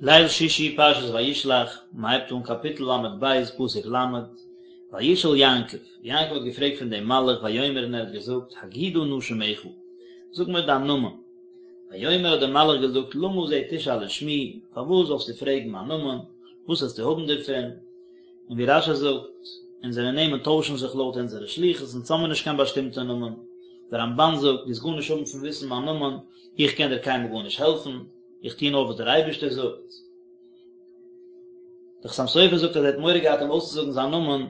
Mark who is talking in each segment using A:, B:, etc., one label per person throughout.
A: ליל שישי פרשת וישלח, מען הייבט אן קאפיטל ל"ב פסוק ל', וישאל יעקב, יעקב האט געפרעגט פון דעם מלאך ויאמר און ער האט געזאגט, הגידה נא שמך, זאג מיר דיין נאמען. ויאמר האט דער מלאך געזאגט למה זה תשאל לשמי, פארוואס זאלסטו פרעגן מיין נאמען, וואס וועסטו האבן דערפון? און ווי רש"י זאגט, אונזערע נעמען טוישן זיך לויט אונזערע שליחות, אונז האמיר נישט קיין באשטימטע נאמען. דער רמב"ן זאגט, דו וועסט גארנישט האבן פון וויסן מיין נאמען, איך קען דיר קיינמאל גארנישט העלפן. איך טו נאר וואס דער אייבערשטער זאגט. דער חתם סופר זאגט אז ער האט מורא געהאט אים אויסצוזאגן זיין נאמען,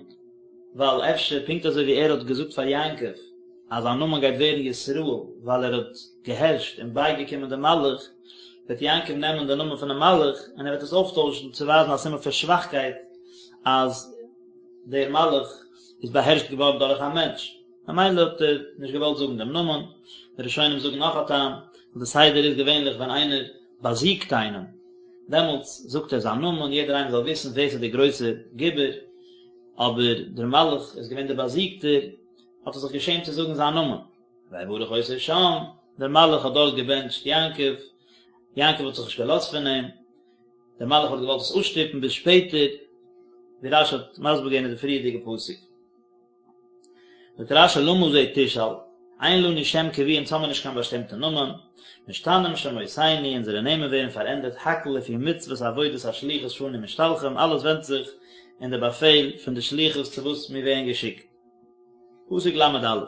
A: ווייל אפשר פונקט אזוי ווי ער האט געזאגט פאר יעקב אז זיין נאמען גייט ווערן ישראל ווייל ער האט געהערשט און בייגעקומען דעם מלאך, וועט יעקב נעמען די נאמען פונעם מלאך און ער וועט עס אויפטוישן צו ווייזן א סימן פון שוואכקייט אז דער מלאך איז באהערשט געווארן דורך א מענטש. ממילא האט ער נישט געוואלט זאגן דעם נאמען, די ראשונים זאגן נאך א טעם, ווייל די סדר איז געווענליך ווען איינער באזיגט איינעם, דעמאלטס זאגט ער זיין נאמען, יעדער איינער זאל וויסן ווער ס'איז דער גרויסער גיבור, אבער דער מלאך איז געווען דער באזיגטער, האט ער זיך געשעמט צו זאגן זיין נאמען. ויברך אותו שם, דער מלאך האט דארט געבענטשט יעקב, יעקב האט זיך נישט געלאזט פון אים, דער מלאך האט געוואלט עס אפשטופן ביז שפעטער, ווי רש"י האט מסביר געווען אין די פריערדיגע פסוק. זאגט רש"י למה זה תשאל, אין לנו שם קבוע אונז האמיר נישט קיין באשטימטע נאמען, משתנים שמותינו אונזערע נעמען ווערן פארענדערט הכל לפי מצוות עבודת השליחות שאנו משתלחים אלעס ווענדט זיך אין די באפעל פון די שליחות צו וואס מיר ווערן געשיקט. פסוק ל"א,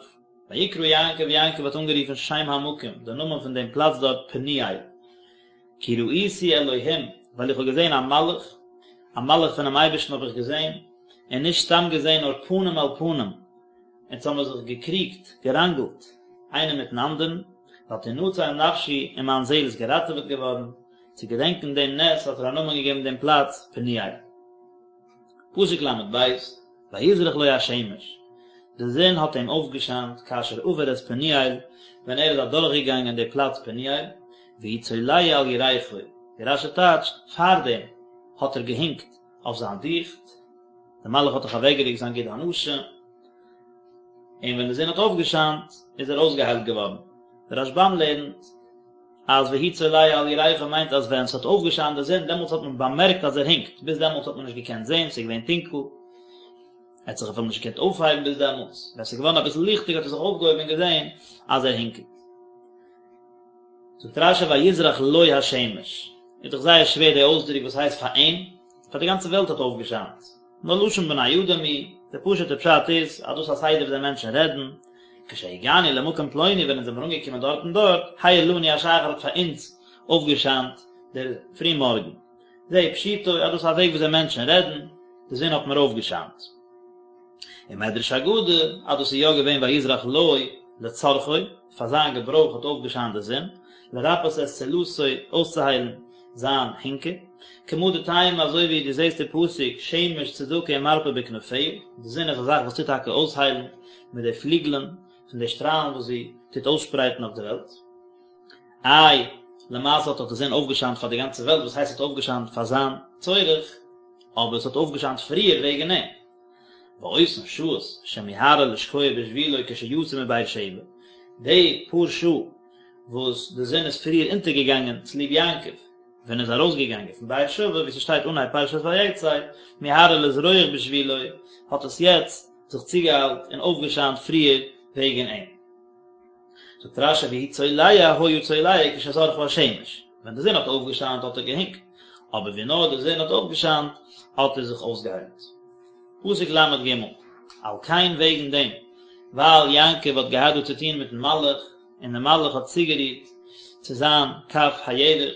A: ויקרא יעקב יעקב האט אנגערופן שם המקום די נאמען פון דעם פלאץ דארט פניאל. כי ראיתי אלהים, ווייל איך האב געזען א מלאך, א מלאך פונעם אייבערשטן האב איך געזען, און נישט סתם געזען נאר פנים אל פנים, אונז האמיר זיך געקריגט, געראנגלט, איינער מיטן אנדערן, ותנצל נפשי, און מיין זעל איז געראטעוועט געווארן, צו געדענקען דעם נס האט ער א נאמען געגעבן דעם פלאץ פניאל. פסוק ל"ב, ויזרח לו השמש, די זון האט אים אויפגעשיינט כאשר עבר את פניאל, ווען ער איז אדורכגעגאנגען די פלאץ פניאל, והוא צולע על ירכו, ווי רש"י טייטשט, פארדעם האט ער געהינקט אויף זיין דיכט, דער מלאך האט דאך אוועקגערוקט זיין גיד הנשה, און ווען די זון האט אויפגעשיינט איז ער אויסגעהיילט געווארן. דער רשב"ם לערנט אז והוא צולע על ירכו מיינט אז ווען ס'האט אויפגעשיינט די זון דעמאלטס האט מען באמערקט אז ער הינקט, ביז דעמאלטס האט מען נישט געקענט זען, ס'איז געווען טונקל, ער האט זיך אפילו נישט געקענט אויפהייבן ביז דעמאלטס, ווען ס'איז געווארן אביסל ליכטיג האט ער זיך אויפגעהויבן און געזען אז ער הינקט. זאגט רש"י ויזרח לו השמש, איז דאך זייער שווער די אויסדרוק וואס הייסט פאר אים, פאר די גאנצע וועלט האט אויפגעשיינט, נאר לשון בני אדם הוא, דער פשוט'ער פשט איז אז דאס איז א סדר וויאזוי מענטשן רעדן, כשהגענו למקום פלוני ווען אונז זעמיר אנגעקומען דארט און דארט, האיר לנו השחר האט פאר אונז אויפגעשיינט דער פרימארגן. זה פשוטו אז דאס איז א וועג וויאזוי מענטשן רעדן, די זון האט מיר אויפגעשיינט. ומדרש אגדה אז דאס איז יא געווען ויזרח לו לצרכו, פאר זיין געברויך האט אויפגעשיינט די זון, לרפאות את צלעתו, אויסצוהיילן זיין הינקע, כמה דתימא אזוי ווי דו זעסט די פסוק שמש צדקה ומרפא בכנפיה, די זון איז א זאך וואס טוט טאקע אויסהיילן מיט די פליגלען פון די שטראלן וואס זי טוט אויסשפרייטן אויף די וועלט. איי, למעשה האט דאך די זון אויפגעשיינט פאר די גאנצע וועלט, וואס הייסט ס'האט אויפגעשיינט פאר זיין צורך, אבער עס האט אויפגעשיינט פריער וועגן אים. ואותן שעות שמיהרה לשקוע בשבילו כשיצא מבאר שבע, די פאר שעה וואס די זון איז פריער אונטערגעגאנגען צוליב יעקב ווען ער איז ארויסגעגאנגען פון באר שבע, ווי ס'שטייט אנהייב פרשת ויצא, מיהרה לזרוח בשבילו, האט עס יעצט זיך צוגעאיילט און אויפגעשיינט פריער וועגן אים. זאגט רש"י והוא צולע היה צולע כשזרחה השמש, ווען די זון האט אויפגעשיינט האט ער געהינקט, אבער ווי נאר די זון האט אויפגעשיינט האט ער זיך אויסגעהיילט. פסוק ל"ג, על כן וועגן דעם, ווייל יעקב האט געהאט דא צו טון מיטן מלאך, און דער מלאך האט צוגערירט צו זיין כף הירך,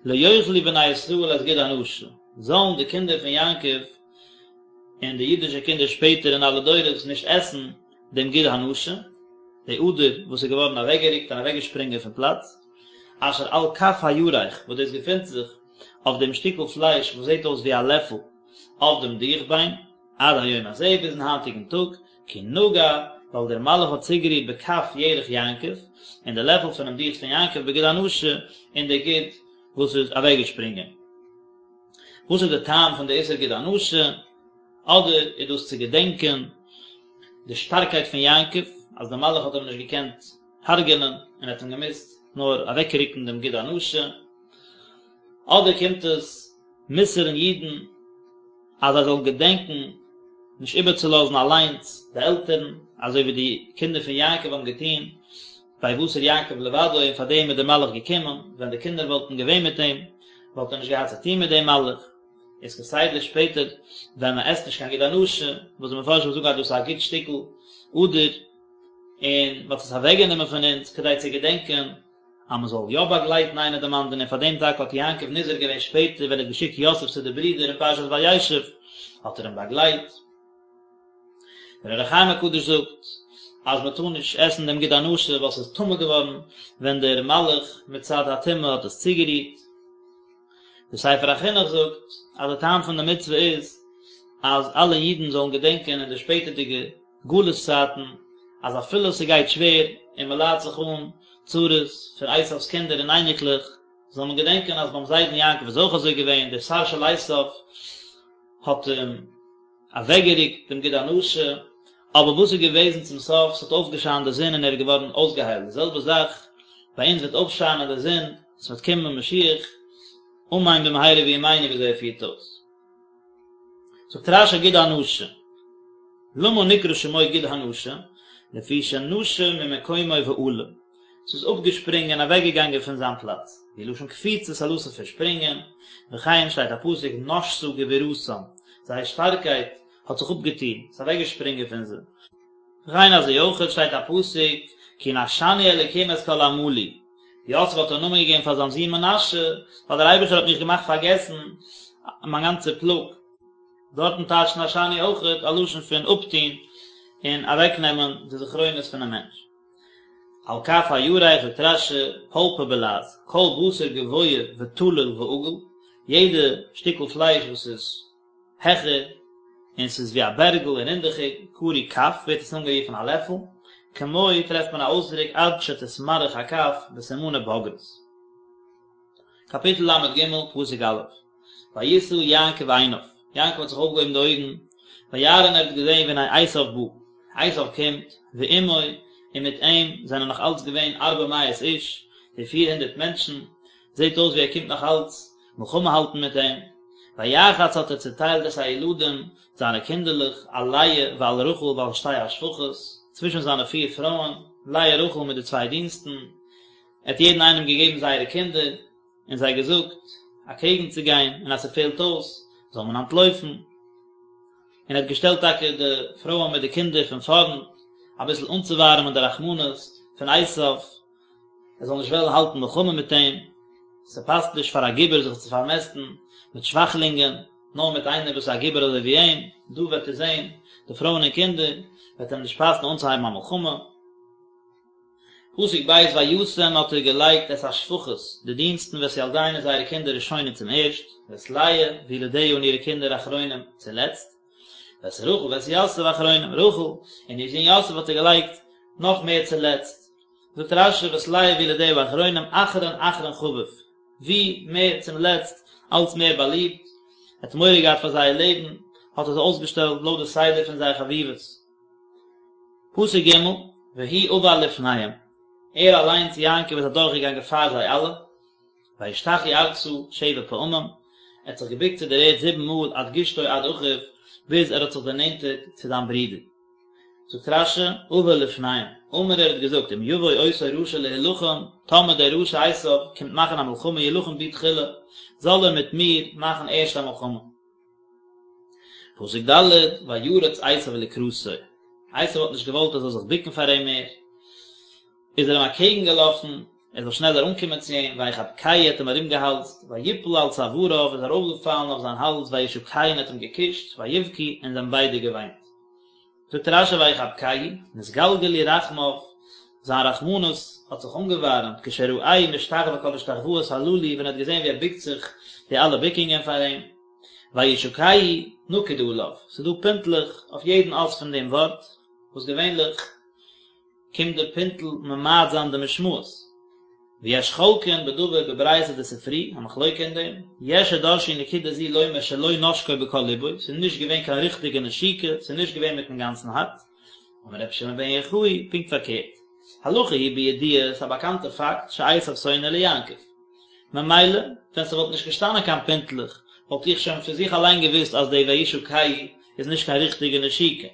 A: לא יאכלו בני ישראל את גיד הנשה, זאלן די קינדער פון יעקב און די אידישע קינדער שפעטער אין אלע דורות נישט עסן דעם גיד הנשה, די אדער וואס איז געווארן אוועקגערוקט און אוועקגעשפרינגען פון פלאץ, אשר על כף הירך, וואס דאס געפינט זיך אויף דעם שטיקל פלייש וואס זעט אויס ווי א לעפל אויף דעם דיכביין, עד היום הזה, ביזן היינטיגן טאג, כי נגע, ווייל דער מלאך האט צוגערירט בכף ירך יעקב, אין די לעפל פונעם דיכט פון יעקב בגיד הנשה, אין די גיד וואס איז אוועקגעשפרינגען. וואס איז די טעם פון די איסור גיד הנשה? אדער איז דאס צו געדענקען די שטארקייט פון יעקב, אז דער מלאך האט אים נישט געקענט הרג'ענען און ער האט אים געמוזט נאר אוועקרוקן דעם גיד הנשה. אדער קומט עס מוסר'ן אידן אז זיי זאלן געדענקען נישט איבערצולאזן אליינס די עלטערן, אזוי ווי די קינדער פון יעקב האבן געטון, ויותר יעקב לבדו, און פאר דעם איז דער מלאך געקומען, ווען די קינדער וואלטן געווען מיט אים, וואלט ער נישט געהאט צו טון מיט דעם מלאך. איז כסדר שפעטער ווען מען עסט נישט קיין גיד הנשה, וואס די מפרשים זאגן אז דאס איז א גוט שטיקל אדער, און מען האט עס אוועקגענומען פון אונז כדי צו געדענקען אז מען זאל יא באגלייטן איינער דעם אנדערן, און פאר דעם טאקע האט יעקב נזהר געווען שפעטער ווען ער האט געשיקט יוסף צו די ברידער אין פרשת וישב האט ער אים באגלייט. דער אור החיים הקדוש זאגט אז מען טאר נישט עסן דעם גיד הנשה ווייל ס'איז טמא געווארן ווען דער מלאך מצד הטומאה האט עס צוגערירט. דער ספר החינוך זאגט אז די טעם פון די מצוה איז אז אלע אידן זאלן געדענקען אין די שפעטערדיגע גלות צייטן אז אפילו ס'גייט שווער און מ'ליידט זיך אן צרות פון עשיו'ס קינדער און אייניקלעך זאל מען געדענקען אז ביים זיידן יעקב איז אויך אזוי געווען, דער שר של עשיו האט אים אוועקגערוקט דעם גיד הנשה, אבער וואס איז געוועזן צום סוף, ס'האט אויפגעשיינט די זון און ער איז געווארן אויסגעהיילט, די זעלבע זאך ביי אונז וועט אויפשיינען די זון, ס'וועט קומען משיח, אמן במהרה בימינו ווי אזוי ער פירט אויס. זאגט רש"י גיד הנשה, למה נקרא שמו גיד הנשה, לפי שנשה ממקומו ועלה, ס'איז אפגעשפרינגען אוועקגעגאנגען פון זיין פלאץ, והוא לשון קפיצה ס'א לשון פון שפרינגען, וכן שטייט א פסוק נשתה גבורתם, זייער שטארקייט האט זיך אפגעטון, ס'איז אוועקגעשפרינגען פון זיי. וכן אזוי אויכעט שטייט א פסוק כי נשני אלקים את כל עמלי, יוסף האט א נאמען געגעבן פאר זיין זון מנשה, ווייל דער אייבערשטער האט מיך געמאכט פארגעסן מיין גאנצע פלאג. דארטן טייטשט נשני אויכעט א לשון פון אפטון און אוועקנעמען די זכרונות פונעם מענטש. על כף הירך זאגט רש"י, פולפא בלע"ז, כל בשר גבוה ותלול ועגול, יעדע שטיקל פלייש וואס איז העכער און ס'איז ווי א בערגל און רינדעכיג, קרוי כף, ווערט עס אנגערופן א לעפל, כמו טרעפט מען א אויסדרוק עד שתתמרח הכף בסימני בגרות. קאפיטל ל"ג, פסוק א', וישא יעקב עיניו, יעקב האט זיך אויפגעהויבן די אויגן, וירא און ער האט געזען והנה עשיו בא, עשיו קומט, ועמו, און מיט אים זענען נאך אלץ געווען ארבע מאות איש, די פיר הונדערט מענטשן, זעט אויס ווי ער קומט נאך אלץ מלחמה האלטן מיט אים, ויחץ האט ער צעטיילט את הילדים, זיינע קינדערלעך, על לאה ועל רחל ועל שתי השפחות, צווישן זיינע פיר פרויען, לאה רחל מיט די צוויי דינסטן, ער האט יעדן איינעם געגעבן זייערע קינדער, און זיי געזאגט, אקעגן צו גיין, און אז ס'פעלט אויס, זאל מען אנטלויפן. און ער האט געשטעלט טאקע די פרויען מיט די קינדער פון פארנט, אביסל אנצואווארעמען די רחמנות פון עשיו, ער זאל נישט וועלן האלטן מלחמה מיט אים, ס'פאסט נישט פאר א גיבור זיך צו פארמעסטן מיט שוואכלינגען, נאר מיט איינער וואס איז א גיבור אזוי ווי אים, דא וועט ער זען די פרויען און קינדער, וועט אים נישט פאסן אנצוהייבן א מלחמה. פסוק ב' וישם האט ער געלייגט את השפחות, די דינסטן ואת ילדיהן און זייערע קינדער ראשונים צום ערשט, ואת לאה וילדיה און אירע קינדער אחרונים צולעצט, ואת רחל ואת יוסף אחרונים, רחל און איר זון יוסף האט ער געלייגט נאך מער צולעצט, זאגט רש"י ואת לאה וילדיה אחרונים אחרון אחרון חביב, ווי מער צום לעצט אלץ מער באליבט, ער האט מורא געהאט פאר זייער לעבן, האט ער זיי אויסגעשטעלט לויט די סדר פון זייער חביבות. פסוק ג', והוא עבר לפניהם, ער אליינס יעקב איז אדורכגעגאנגען פאר זיי אלע, וישתחו ארצה שבע פעמים, ער האט זיך געבוקט צו דער ערד זיבן מאל עד גשתו עד אחיו, ביז ער האט זיך דערנענטערט צו זיין ברודער. זאגט רש"י, עבר לפניהם, אמר ער האט געזאגט, אם יבוא אותו רשע להילחם, טאמער דער רשע עשיו קומט מאכן א מלחמה ילחם בי תחילה, זאל ער מיט מיר מאכן ערשט א מלחמה. פסוק ד', וירץ עשיו לקראתו, עשיו האט נישט געוואלט ער זאל זיך בוקן פאר אים מער, איז ער אים אקעגן געלאפן, ער זאל שנעלער אנקומען צו אים, ויחבקהו האט אים ארומגעהאלזט, ויפל על צואריו איז ארויפגעפאלן אויף זיין האלז, וישקהו און האט אים געקושט, ויבכו און זיי האבן ביידע געוויינט. זאגט רש"י ויחבקהו, נתגלגלו רחמיו, זיין רחמנות האט זיך אנגעווארעמט, כשראהו משתחוה כל השתחוואות הללו, ווען ער האט געזען ווי ער בוקט זיך די אלע בוקונגען פאר אים, וישקהו נקוד עליו, ס'איז דא פינטלעך אויף יעדן אות פון דעם ווארט, וואס געווענליך קומט די פינטל ממעט זיין די משמעות. ויש חולקין בדבר בברייתא דספרי, א מחלוקה אין דעם, יש שדרשו נקודה זו לומר שלא נשקו בכל לבו, ס'איז נישט געווען קיין ריכטיגע נשיקה, ס'איז נישט געווען מיטן גאנצן הארץ, אמר רבי שמעון בן יוחאי, פונקט פארקערט, הלכה היא בידוע, ס'איז א באקאנטע פאקט, שעשו שונא ליעקב. ממילא, ווען ס'וואלט נישט געשטאנען קיין פינטלעך, וואלט איך שוין פון זיך אליין געוואוסט אז די וישקהו איז נישט קיין ריכטיגע נשיקה.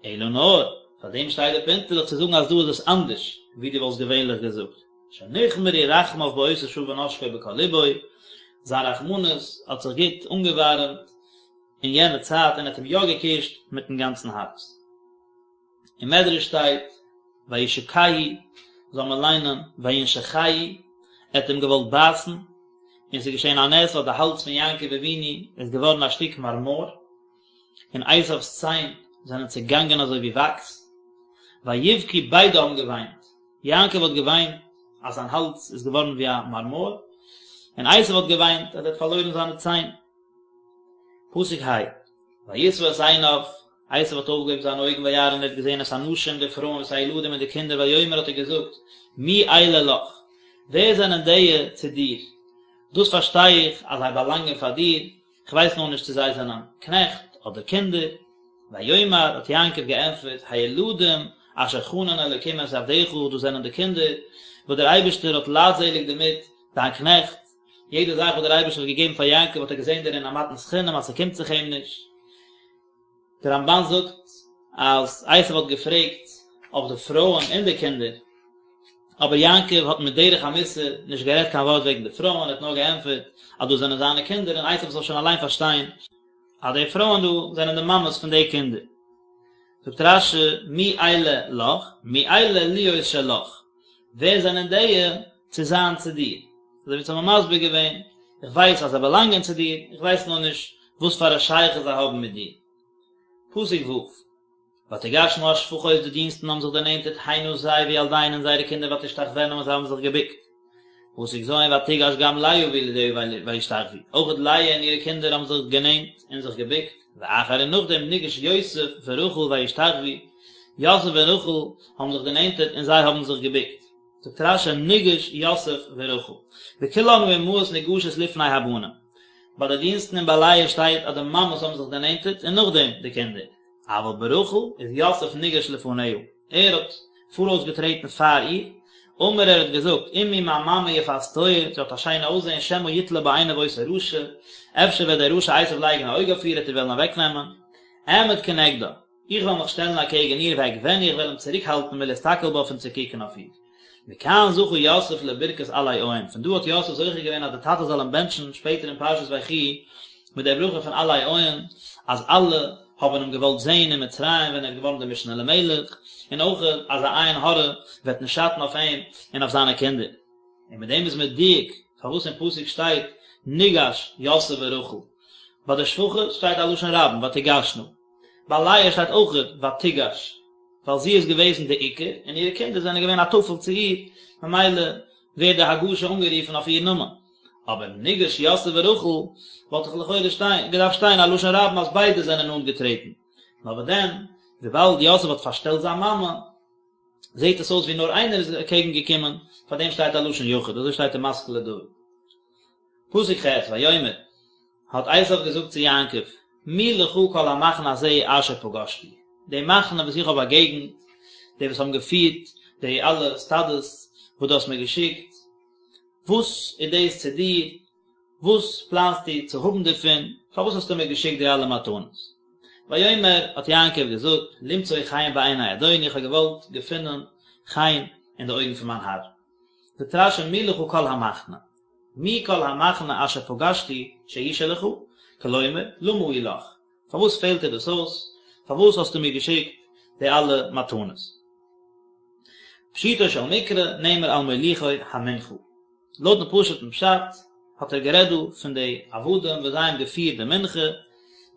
A: אלא נאר, פאר דעם שטייט די פינטלעך צו זאגן אז דא איז עס אנדערש ווי דו וואלסט געווענליך געזאגט. שנחמרו רחמיו באותה שעה ונשקו בכל לבו, זיין רחמנות האט זיך גוט אנגעווארעמט אין יענע צייט און ער האט אים יא געקושט מיטן גאנצן הארץ. אין מדרש שטייט וישקהו זאל מען ליינען וינשכהו, ער האט אים געוואלט בייסן, און ס'איז געשען א נס אז די האלז פון יעקב אבינו איז געווארן א שטיק מארמאר, און עשיו'ס ציין זענען צעגאנגען אזוי ווי וואקס, ויבכו ביידע האבן געוויינט, יעקב האט געוויינט אז זיין האלז איז געווארן ווי א מארמאר, און עשיו האט געוויינט אז ער האט פארלוירן זיינע ציין. פסוק ה. וישא את עיניו, עשו האט אויפגעהויבן זיינע אויגן וירא און ער האט געזען את הנשים די פרויען ואת הילדים און די קינדער ויאמר האט ער געזאגט מי אלה לך, ווער זענען דיע צו דיר, דאס פארשטיי איך אז זיי באלאנגען פאר דיר, איך ווייס נאר נישט צו זיי זענען קנעכט אדער קינדער. ויאמר האט יעקב געענטפערט הילדים אשר חנן אלוקים את עבדך דאס זענען די קינדער וואס דער אייבערשטער האט לייטזעליג דערמיט דיין קנעכט, יעדע זאך וואס דער אייבערשטער האט געגעבן פאר יעקב האט ער געזען דערין א מתנת חינם אז ס'קומט זיך אים נישט. דער רמבן זאגט אז עשו האט געפרעגט אויף די פרויען און די קינדער, אבער יעקב האט מיט דרך המוסר נישט גערעדט קיין ווארט וועגן די פרויען, ער האט נאר געענטפערט אז דאס זענען זיינע קינדער און עשו זאל שוין אליין פארשטיין אז די פרויען דא זענען די מאמעס פון די קינדער. זאגט רש"י מי אלה לך, מי אלה להיות שלך, ווער זענען דיע צו זיין צו דיר? אזוי ווי אונז האבן מסביר געווען, איך ווייס אז זיי באלאנגען צו דיר, איך ווייס נאר נישט וואס פאר א שייכות זיי האבן מיט דיר. פסוק ו', ותגשנה השפחות די דינסטן האבן זיך דערנענטערט הנה זיי וילדיהן און זייערע קינדער ותשתחוין און זיי האבן זיך געבוקט. פסוק ז' ותגש גם לאה וילדיה וישתחוו, אויך לאה און אירע קינדער האבן זיך גענענט און זיך געבוקט, ואחר און נאכדעם ניגש יוסף ורחל וישתחוו, יוסף און רחל האבן זיך דערנענטערט און זיי האבן זיך געבוקט. זאגט רש"י ניגש יוסף ורחל, בכולן האמהות ניגשות לפני הבנים, ביי די דינסטן און ביי לאה שטייט אז די מאמעס האבן זיך דערנענטערט און נאכדעם די קינדער, אבל ברחל איז יוסף ניגש לפניה, ער האט פאראויס געטרעטן פאר איר, אמר ער האט געזאגט, אמי מיין מאמע יפת תואר, זי האט א שיינע אויסזען, שמא יתלה בה עיניו אותו רשע, אפשר וועט דער רשע עשו לייגן א אויג אויף איר, ער וועט איר וועלן אוועקנעמען, אעמוד כנגדה, איך וועל מיך שטעלן אקעגן איר ואגבנה איך וועל אים צוריקהאלטן מלהסתכל בה פון צו קוקן אויף איר. מכאן זכה יוסף לברכת עלי עין, פון דא האט יוסף זוכה געווען אז דער טאטע זאל אים בענטשן שפעטער אין פרשת ויחי מיט דער ברכה פון עלי עין, אז אלע האבן אים געוואלט זען אין מצרים ווען ער איז געווארן דער משנה למלך, און אויך אז א עין הרע וועט נישט שאטן אויף אים און אויף זיינע קינדער. און מיט דעם איז מדויק פארוואס אין פסוק שטייט ניגש יוסף ורחל, ביי די שפחות שטייט א לשון רבים ותגשנה. ביי לאה שטייט אויכעט ותגש, ווייל זי איז געוועזן די עיקר, און אירע קינדער זענען געווען א טפל צו איר, ממילא ווערט די הגשה אנגערופן אויף איר נאמען. אבער ניגש יוסף ורחל, וואלט דאך לכאורה שטיין, געדארפט שטיין א לשון רבים אז ביידע זענען נאנט געטרעטן. נאר וואס דען, וויבאלד יוסף האט פארשטעלט זיין מאמע, זעט עס אויס ווי נאר איינער איז אקעגן געקומען, פאר דעם שטייט א לשון יחיד, אזוי שטייט אין משכיל לדוד. פסוק ח', ויאמר, האט עשיו געזאגט צו יעקב, מי לך כל המחנה הזה אשר פגשתי, די מחנה וואס איך האב באגעגנט, די וואס האבן געפירט די אלע סטאדעס וואס דו האסט מיר געשיקט, וואס איז דאס צו דיר, וואס פלאנסטו צו האבן דערפון, פארוואס האסטו מיר געשיקט די אלע מתנות? ויאמר, האט יעקב געזאגט, למצוא חן בעיני אדוני, איך האב געוואלט געפינען חן אין די אויגן פון מיין האר. זאגט רש"י מי לך כל המחנה, מי כל המחנה אשר פגשתי שהוא שלך, כלומר, למה הוא לך, פארוואס פעלט דיר דאס אויס, פארוואס האסטו מיר געשיקט די אלע מתנות? פשוטו של מקרא נאמר על מוליכי המנחה. לויטן פשוט'ן פשט האט ער גערעדט דא פון די עבדים וואס זיי האבן געפירט די מנחה,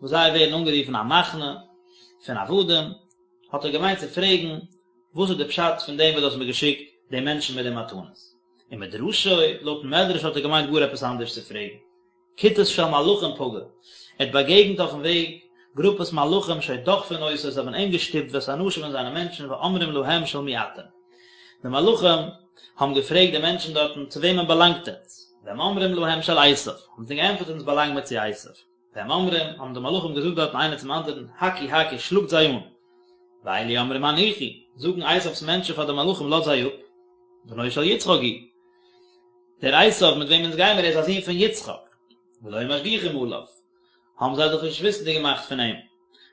A: וואס זיי ווערן אנגערופן א מחנה פון עבדים, האט ער געמיינט צו פרעגן וואס איז די פשט פון דעם וואס דו האסט מיר געשיקט די מענטשן מיט די מתנות. ומדרשו, לויטן מדרש האט ער געמיינט גאר עפעס אנדערש צו פרעגן. כיתות של מלאכים פגע, ער האט באגעגנט אויפן וועג גרופעס מלאכים שהיו דוחפין אותו, זיי האבן אים געשטופט ואת אנשיו און זיינע מענטשן ואומרים להם של מי אתם. די מלאכים האבן געפרעגט די מענטשן דארטן צו וועמען באלאנגט עטץ? והם אומרים להם של עשיו, האבן זיי געענטפערט אונז באלאנג מיר צו עשיו. והם אומרים, האבן די מלאכים געזאגט דארטן איינער צום אנדערן, הכו הכו, שלאגט זיי אן. ואלו אומרים הניחו, זאגן עשיו'ס מענטשן פאר די מלאכים לאזט זיי אפ, בנו של יצחק הוא. דער עשיו מיט וועם אונז גיימער ער איז א זון פון יצחק, ולא היו משגיחים עליו, האבן זיי זיך נישט וויסנדיג געמאכט פון אים.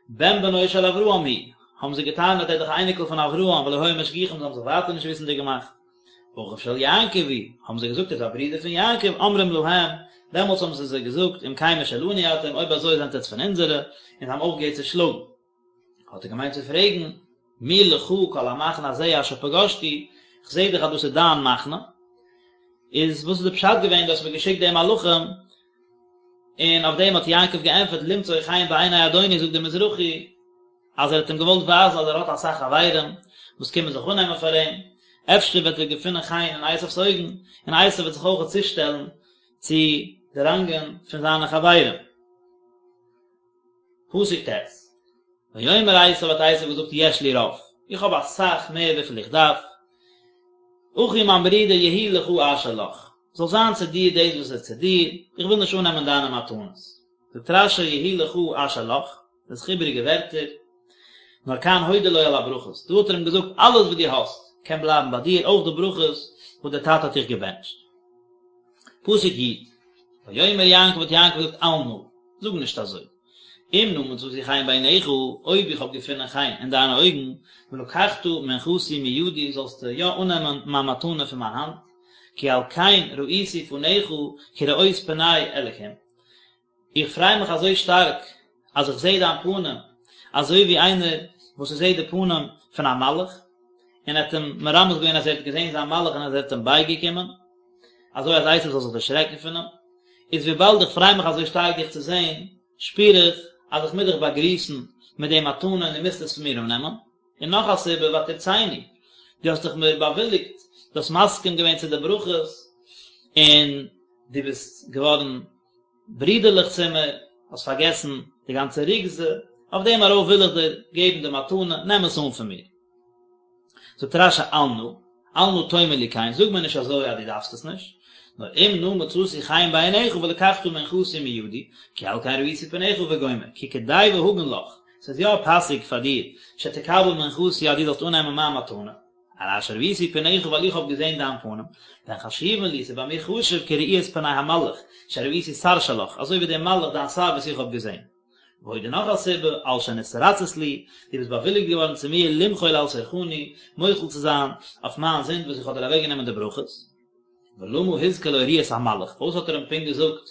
A: בן בנו של אברהם הוא, האבן זיי געטענה'ט ער איז דאך א אייניקל פון אברהם ולא היו משגיחים זיי האבן זיך ווייטער נישט וויסנדיג געמאכט. אחיו של יעקב הוא, האבן זיי געזאגט ער איז א ברודער פון יעקב, אומרים להם, דעמאלטס האבן זיי זיי געזאגט אם כן משלנו אתם, אויב אזוי זענט עטס פון אונזערע, און זיי האבן אויפגעהערט צו שלאגן. האט ער געמיינט צו פרעגן, מי לך כל המחנה הזה אשר פגשתי, כ'זעה דאך אז דאס איז דיין מחנה, איז וואס איז די פשט געווען דו האסט מיר געשיקט די מלאכים, און אויף דעם האט יעקב געענטפערט למצוא חן בעיני אדוני זאגט דער מזרחי אז ער האט אים געוואלט ווייזן אז ער האט אסאך חברים וואס קומען זיך אננעמען פאר אים, אפשר וועט ער געפינען חן אין עשיו'ס אויגן, און עשיו וועט זיך אויך צושטעלן צו די ראנגען פון זיינע חברים. פסוק ט', ויאמר עשיו האט עשיו געזאגט יש לי רב, איך האב אסאך מער וויפיל איך דארף, אחי מיין ברודער יהי לך אשר לך, זאל זיין צו דיר דאס וואס איז צו דיר, איך וויל נישט אננעמען דיינע מתנות. זאגט רש"י יהי לך אשר לך, דאס איז איבעריגע ווערטער, נאר כאן הודה לו על הברכות, דא האט ער אים געזאגט אלעס וואס דו האסט קען בלייבן ביי דיר, אויך די ברכות וואס דער טאטע האט דיך געבענטשט. פסוק י', ויאמר יעקב האט יעקב געזאגט אל נא, זאג נישט אזוי, אם נא מצאתי חן בעיניך, אויב איך האב געפונען חן אין דיינע אויגן, ולקחת מנחתי מידי, זאלסטו יא אננעמען מיין מתנה פון מיין האנט, כי על כן ראיתי פניך כראות פני אלקים. איך פריי מיך אזוי שטארק אז איך זעה דיין פנים, אזוי ווי איינער וואס ער זעט די פנים פון א מלאך, און ער האט אים מרמז געווען אז ער האט געזען זיין מלאך און אז ער האט אים בייגעקומען, אזוי אז עשו זאל זיך דערשרעקן פון אים. איז וויבאלד איך פריי מיך אזוי שטארק דיך צו זען, שפיר איך אז איך מוז דיך באגריסן מיט די מתנה און דו מוזט עס פון מיר אננעמען. און נאך א סיבה, ותרצני, דו האסט דאך מיר באוויליגט, דו האסט מסכים געווען צו די ברכות, און דו ביסט געווארן ברידערליך צו מיר, האסט פארגעסן די גאנצע רוגזה, אויף דעם ארויף וויל איך דיר געבן די מתנה, נעם עס אן פון מיר. זאגט רש"י אל נא, אל נא תאמר לי כן, זאג מיר נישט אזוי אז דו דארפסט עס נישט, נאר אם נא מצאתי חן בעיניך ולקחת מנחתי מידי, כי על כן ראיתי פניך וגומר, כי כדאי והגון לך, ס'איז יא פאסיג פאר דיר, שתקבל מנחתי אז דו זאלסט אננעמען מיין מתנה. על אשר ראיתי פניך ווייל איך האב געזען דיין פנים, והן חשובין לי, ס'איז ביי מיר חשוב כראיית פני המלאך, שראיתי שר שלך, אזוי ווי דער מלאך דיין שר וואס איך האב געזען. ועוד און נאך א סיבה, על שנתרצית לי, דו ביסט באוויליגט געווארן צו מיר למחול על סרחוני, מוחל צו זיין אויף מיין זינד וואס איך האב דיר אוועקגענומען די ברכות. ולמה הזכיר לו ראיית המלאך, פארוואס האט ער אים פונקט געזאגט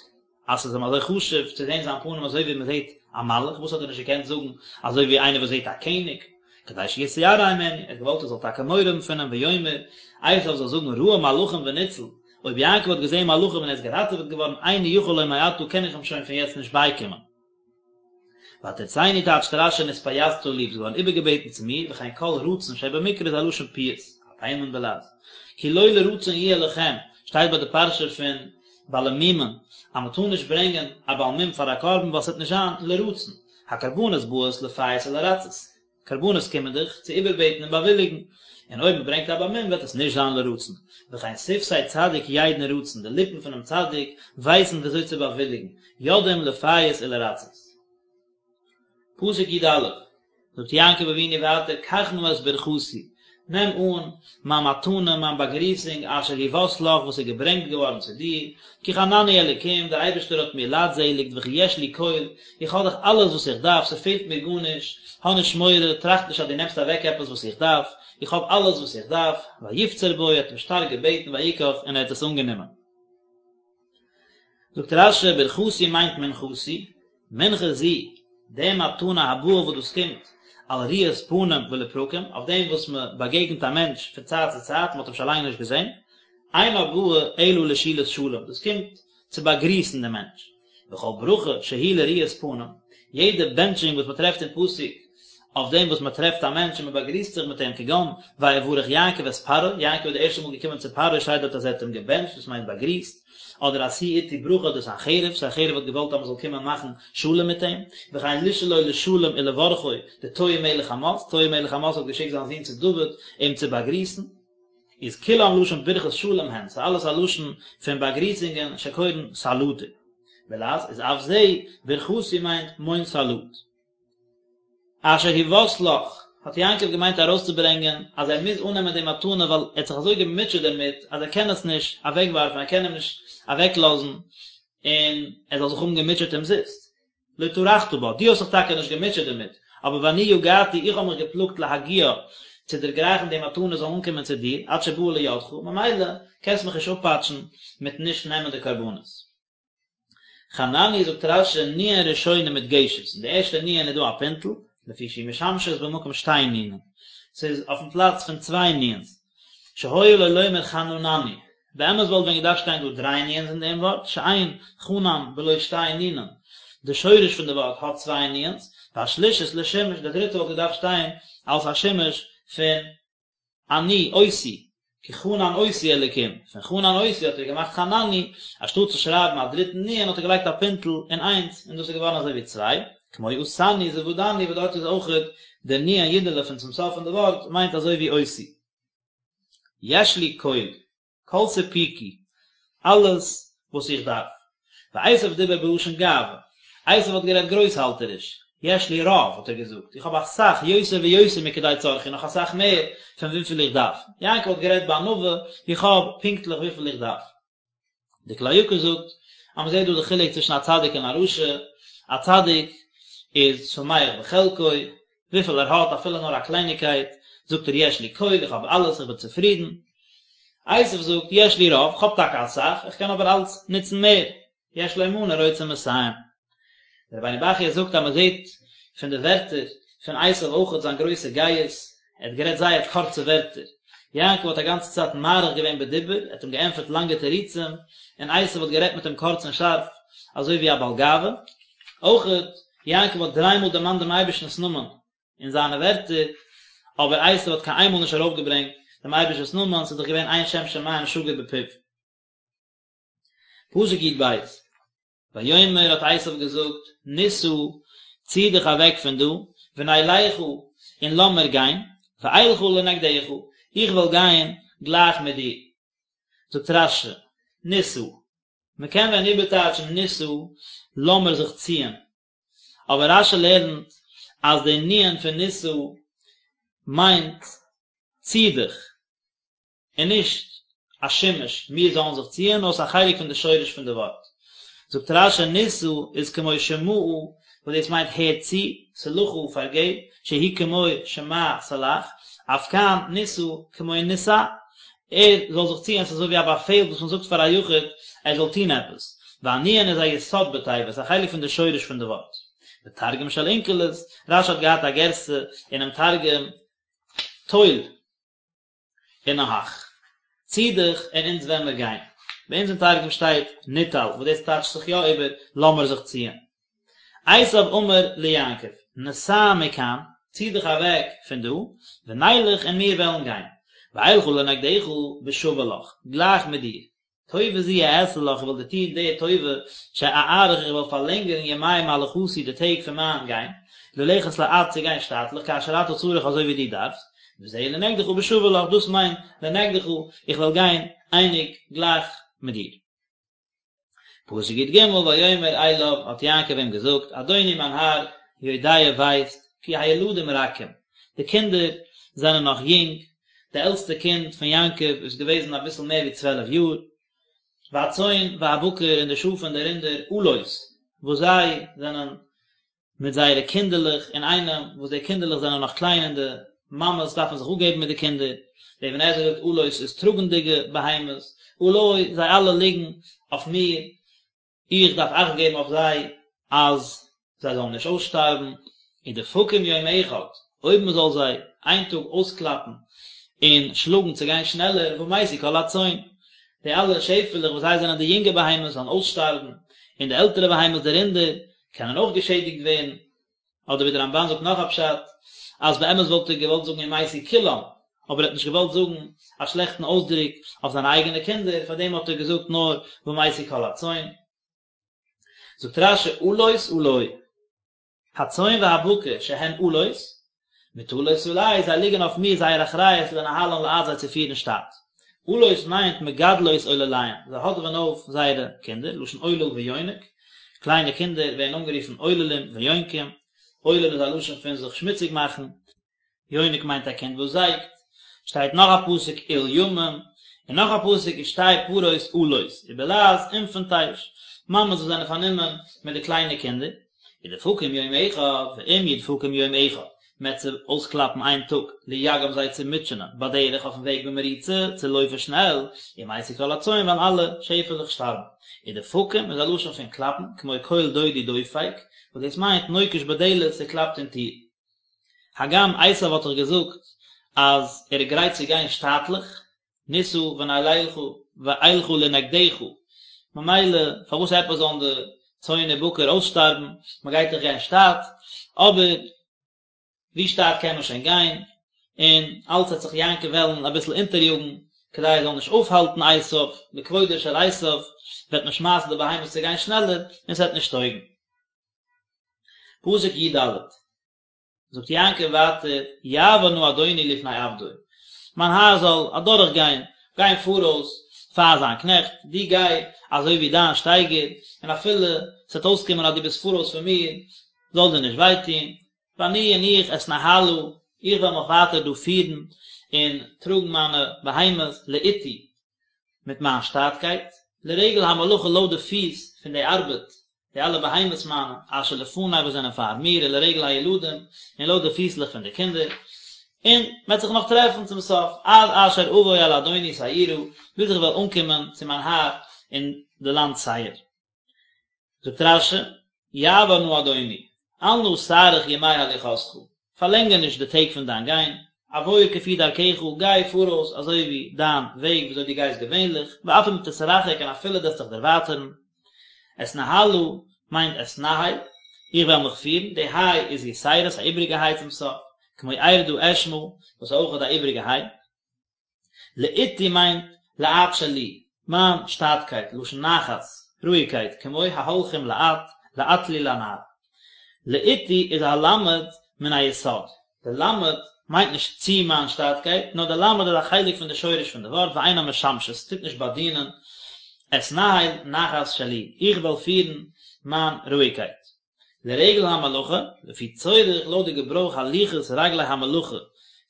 A: אז ס'איז אים אזוי חשוב צו זען זיין פנים אזוי ווי מ'זעט א מלאך, וואס האט ער נישט געקענט זאגן אזוי ווי איינער וואס זעט א קעניג, כדי שיתיירא הימנו, ער האט געוואלט ער זאל טאקע מורא האבן פון אים, ויאמר, עשיו זאל זאגן ראה מלאכים וניצל, אויב יעקב האט געזען מלאכים און ער איז געראטעוועט געווארן, איני יכול לו מעתה קען איך אים שוין פון יעצט נישט בייקומען. ותרצני טייטשט רש"י נתפייסת לי, ביסט געווארן איבערגעבעטן צו מיר, וכן כל רצון שבמקרא איז א לשון פיוס, א תימן בלע"ז. כי לא לרצון יהיה לכם, שטייט ביי די פרשה פון בעלי מומין, אז מען טאר נישט ברענגען א בעל מום פאר א קרבן ווייל ס'וועט נישט זיין לרצון, הקרבנות באות לפייס ולרצות, קרבנות קומען דאך צו איבערבעטן און באוויליגן, און אויב מען ברענגט א בעל מום וועט עס נישט זיין לרצון, וכן שפתי צדיק ידעון רצון, די ליפן פונעם צדיק ווייסן ווי אזוי צו באוויליגן, יודעים לפייס ולרצות. פסוק י"א, זאגט יעקב אבינו ווייטער קח נא את ברכתי, נעם אן מיין מתנה, מיין באגריסונג, אשר הובאת לך, וואס איז געברענגט געווארן צו דיר, כי חנני אלוקים, דער אייבערשטער האט מיר לייטזעליגט, וכי יש לי כל, איך האב דאך אלעס וואס איך דארף, ס'פעלט מיר גארנישט, האב נישט מורא, טראכט נישט אז דו נעמסט אוועק עפעס וואס איך דארף, איך האב אלעס וואס איך דארף, ויפצר בו, ער האט אים שטארק געבעטן, ויקח, און ער האט עס אנגענומען. זאגט רש"י, ברכתי מיינט מנחתי, מנחה זו, די מתנה הבאה וואס דאס קומט על ראיית פנים ולפרקים, אויף דעם וואס מען באגעגנט א מענטש פון צייט צו צייט, מען האט אים שוין לאנג נישט געזען, אינה באה אלא לשאלת שלום, דאס קומט צו באגריסן דעם מענטש. וכל ברכה שהיא לראיית פנים, יעדע בענטשונג וואס מען טרעפט אין פסוק אויף דעם וואס מען טרעפט א מענטש און מען באגריסט זיך מיט אים כגון ויברך יעקב את פרעה, יעקב איז די ערשטע מאל געקומען צו פרעה שטייט דארט אז ער האט אים געבענטשט דאס מיינט באגריסט, אדער עשו אתי ברכה דסנחריב, סנחריב האט געוואלט אז מען זאל קומען מאכן שלום מיט אים, וכן לשאלו לשלום ולברכו דתועי מלך חמת, תועי מלך חמת האט געשיקט זיין זון צו דוד אים צו באגריסן. איז כולם לשון ברכת שלום הן, ס'איז אלעס א לשון פון באגריסונגען שקורין סלטה. בלע"ז איז אף זה, ברכתי מיינט מוין סאלוט. אשר הובאת לך. האט יעקב געמיינט ארויסצוברענגען אז ער מוז אננעמען די מתנה ווייל ער האט זיך אזוי געמוטשעט דערמיט אז ער קען עס נישט אוועקווארפן, ער קען אים נישט אוועקלאזן און ער זאל זיך האבן געמוטשעט אומזיסט. לא טרחת בה, דו האסט זיך טאקע נישט געמוטשעט דערמיט, אבער ואני יגעתי, איך האב מיך געפלאגט להגיעה, צו דערגרייכן די מתנה זאל אנקומען צו דיר, עד שבאה לידך, ממילא קענסט מיך נישט אפפאטשן מיטן נישט נעמען די קרבנות. חנני זאגט רש"י נון ראשונה מודגשת, אין די ערשטע נון איז דא א פינטל, לפי שהיא משמשת במקום שתי נונין, ס'איז אויפן פלאץ פון צוויי נון'ס, שהיה לו לומר חננני, באמת וואלט ווען געדארפט שטיין דא דריי נון'ס אין דעם ווארט, שאין חנן בלא שתי נונין, די שורש פון די ווארט האט צוויי נון'ס, והשלישית לשימוש, די דריטע וואלט געדארפט שטיין אלס א שימוש פון אני אותי, כי חנן אותי אלקים, פון חנן אותי האט ער געמאכט חנני, אנשטאט צו שרייבן א דריטן נון האט ער געלייגט א פינטל און איינס, און דאס איז געווארן אזוי ווי צוויי, כמו עשני זבדני וואס דארט איז אויכעט די נון יודעלע פון צום סוף פון די ווארט מיינט אזוי ווי אותי. יש לי כל. כל ספוקי, אלעס וואס איך דארף. ועשו דיבר בלשון גאווה, עשו האט גערעדט גרויסהאלטעריש, יש לי רב, האט ער געזאגט, איך האב אסאך, יותר ויותר מכדי צרכי, נאך אסאך מער פון וויפיל איך דארף. יעקב האט גערעדט בענווה, איך האב פונקטליך וויפיל איך דארף. די כלי יקר זאגט אז מען זעט דא די חילוק צווישן א צדיק און א רשע, א צדיק איז שמח בחלקו, וויפיל ער האט אפילו נאר א קלייניגקייט, זאגט ער יש לי כל, איך האב אלעס, איך בין צופרידן. עשו זאגט יש לי רב, איך האב טאקע אסאך, איך קען אבער אלץ נוצן מער, יש לו מנה רוצה מאתים. דער רבינו בחיי זאגט אז מען זעט פון די ווערטער פון עשו אויכעט זיין גרויסע גאות, ער האט גערעדט זייער קורצע ווערטער, יעקב האט א גאנצע צייט מאריך געווען בדיבור, ער האט אים געענטפערט לאנגע תירוצים, און עשו האט גערעדט מיט אים קורץ און שארף, אזוי ווי א בעל גאווה. אויכעט, יעקב האט דריי מאל דערמאנט דעם אייבערשטנ'ס נאמען אין זיינע ווערטער, אבער עשו האט קיין איינמאל נישט ארויפגעברענגט דעם אייבערשטנ'ס נאמען, ס'איז דאך געווען אין שם שמים שגור בפיו. פסוק י"ב, ויאמר האט עשו געזאגט, נסעה, צי דיך אוועק פון דא, ונלכה, און לאמיר גיין, ואלכה לנגדך, איך וועל גיין גלייך מיט דיר. זאגט רש"י, נסעה, מען קען ווען איבערטייטשן נסעה, לאמיר זיך ציען, אבער רש"י לערנט אז די נון פון נסעה מיינט צי דיך, און נישט א שימוש מיר זאלן זיך ציען, נאר עס איז א חלק פון די שורש פון די ווארט. זאגט רש"י נסעה איז כמו שמעה וואס דאס מיינט הער צו, סלחה פארגעב, שהוא כמו שמע סלח, אף כאן נסעה כמו נסע, ער זאל זיך ציען, עס איז אזוי ווי א באפעל וואס מען זאגט פאר א יחיד ער זאל טון עפעס, והנון איז א יסוד בתיבה, עס איז א חלק פון די שורש פון די ווארט. ותרגום של אונקלוס, רש"י האט געהאט א גירסא אינעם תרגום טול. ונהך. צי דיך און אונז וועלן מיר גיין. ביי אונז אין תרגום שטייט ניטל, וואס דאס טייטשט זיך יא איבער לאמיר זיך ציען. עשיו אמר ליעקב, נסע מכאן, צי דיך אוועק פון דא, ונלך און מיר וועלן גיין. ואלכה לנגדך בשווה לך, גלייך מיט דיר. טובה זו אעשה לך, איך וועל דיר טון די טובה, שאאריך איך וועל פארלענגערן ימי מהלכתי די טעג פון מיין גיין, ללכת לאט צו גיין שטאטליך, כאשר אתה צריך אזוי ווי דו דארפסט, וזה לנגדך בשווה לך, דאס מיינט לנגדך, איך וועל גיין אייניג, גלייך, מיט דיר. פסוק י"ג, ויאמר אליו, האט יעקב אים געזאגט, אדוני מיין האר, יודע ווייסט, כי הילדים רכים, די קינדער זענען נאך יונג, די עלטסטע קינד פון יעקב איז געוועזן אביסל מער ווי צוועלף יאר, והצאן והבקר און די שאף און די רינדער אלות, וואס זיי זענען מיט זייערע קינדערלעך אינאיינעם, וואס די קינדערלעך זענען נאך קליין און די מאמעס דארפן זיך אפגעבן מיט די קינדער, דער אבן עזרא זאגט אלות איז טראגנדיגע בהמות, עלי, זיי אלע ליגן אויף מיר, איך דארף אכט געבן אויף זיי אז זיי זאלן נישט אויסשטארבן, ודפקום יום אחד, אויב מען זאל זיי איין טאג אויסקלאפן און שלאגן צו גיין שנעלער, ומתו כל הצאן, די אלע שעפעלעך וואס זיי זענען די יונגע בהמות זאלן אויסשטארבן, און די עלטערע בהמות די רינדער קענען אויך געשעדיגט ווערן, אדער ווי דער רמב"ן זאגט נאך א פשט, אז באמת וואלט ער געוואלט זאגן ומתו כולם, אבער ער האט נישט געוואלט זאגן א שלעכטן אויסדרוק אויף זיינע אייגענע קינדער, פאר דעם האט ער געזאגט נאר ומתו כל הצאן. זאגט רש"י אלות עלי, הצאן והבקר שהן אלות, מוטלות עלי, זיי ליגן אויף מיר זייער אחריות לנהלן לאט זיי צו פירן שטאט. אלות מיינט מגדלות עולליהן, זיי האדעווען אויף זייערע קינדער, לשון עולל ויונק, קליינע קינדער ווערן אנגערופן עוללים ויונקים, עולל איז א לשון פון זיך שמוציג מאכן. יונק מיינט א קינד וואס זייגט, שטייט נאך א פסוק עול ימים, און נאך א פסוק ושתי פרות עולות, ובלעז אינפענטייש, מאמעס וואס זענען פארנומען מיט די קליינע קינדער, ודפקום יום אחד, ואם ידפקום יום אחד, מ'עט זיי אויסקלאפן איין טאג, ליגעם זיי צו מוטשענען, בדרך אויפן וועג במרוצה, צו לויפן שנעל, ומתו כל הצאן וועלן אלע שעפעלעך שטארבן. ודפקום איז א לשון פון קלאפן, כמו קול דודי דופק, וואס דאס מיינט נוקש בדלת, ס'קלאפט אין טיר. הגם עשיו האט דאך געזאגט אז ער איז גרייט צו גיין שטאטליך, נסעה ונלכה ואלכה לנגדך, ממילא פארוואס עפעס זאלן די צאן ובקר אויסשטארבן, מען גייט דאך גיין שטאט, אבער ווי שטאט קען מען שוין גיין, און אלץ וועט זיך יעקב וועלן אביסל אונטעריאגן כדי ער זאל נישט אויפהאלטן עשיו, לכבודו של עשיו וועט מען שמייסן די בהמות צו גיין שנעלער, און ס'וועט נישט טויגן. פסוק י ד, זאגט יעקב ווייטער, יעבור נא אדוני לפני עבדו, מיין האר זאל אדורך גיין, גיין פאראויס פאר זיין קנעכט, דו גיי אזוי ווי דיין שטייגער, און אפילו ס'וועט אויסקומען אז דו ביסט פאראויס פון מיר, זאל דיר נישט וויי טון, ואני און איך אתנהלה, איך וועל מיך ווייטער דא פירן און טראגן מיינע בהמות לאטי, מיט מיין שטאטקייט, לרגל המלאכה לויט די פיס פון די ארבעט, די אלע בהמות מיינע, אשר לפני וואס זענען פאר מיר, ולרגל הילדים, און לויט די פיסלעך פון די קינדער, און מ'וועט זיך נאך טרעפן צום סוף, עד אשר אבוא אל אדוני שעירה, ביז איך וועל אנקומען צו מיין האר אין די לאנד שעיר. זאגט רש י, יעבור נא אדוני, אל נא תאריך ימי הליכתך, פארלענגער נישט די טעג פון דיין גיין, עבור כפי דרכך, גיי פאראויס אזוי ווי דיין וועג וויאזוי דו גייסט געווענליך, ואף אם תתרחק און אפילו דו וועסט דיך דערווייטערן. אתנהלה מיינט אתנהל, איך וועל מיך פירן, די היי איז יתירה, א איבריגע היי צום סוף, כמו ארדה אשמעה, וואס איז אויך א איבריגע היי. לאטי מיינט לאט שלי, מיין שטאטקייט, לשון נחת, רואיגקייט, כמו ההולכים לאט, לאט לי לנער. לאטי איז א למד מן היסוד, די למד מיינט נישט צו מיין שטאטקייט, נאר די למד איז א חלק פון די שורש פון די ווארט ואינה משמשת, ס'טוט נישט באדינען, אתנהל נחת שלי, איך וועל פירן מיין רואיגקייט. לרגל המלאכה, לפי צורך לויט די געברויך הליכת רגלי המלאכה,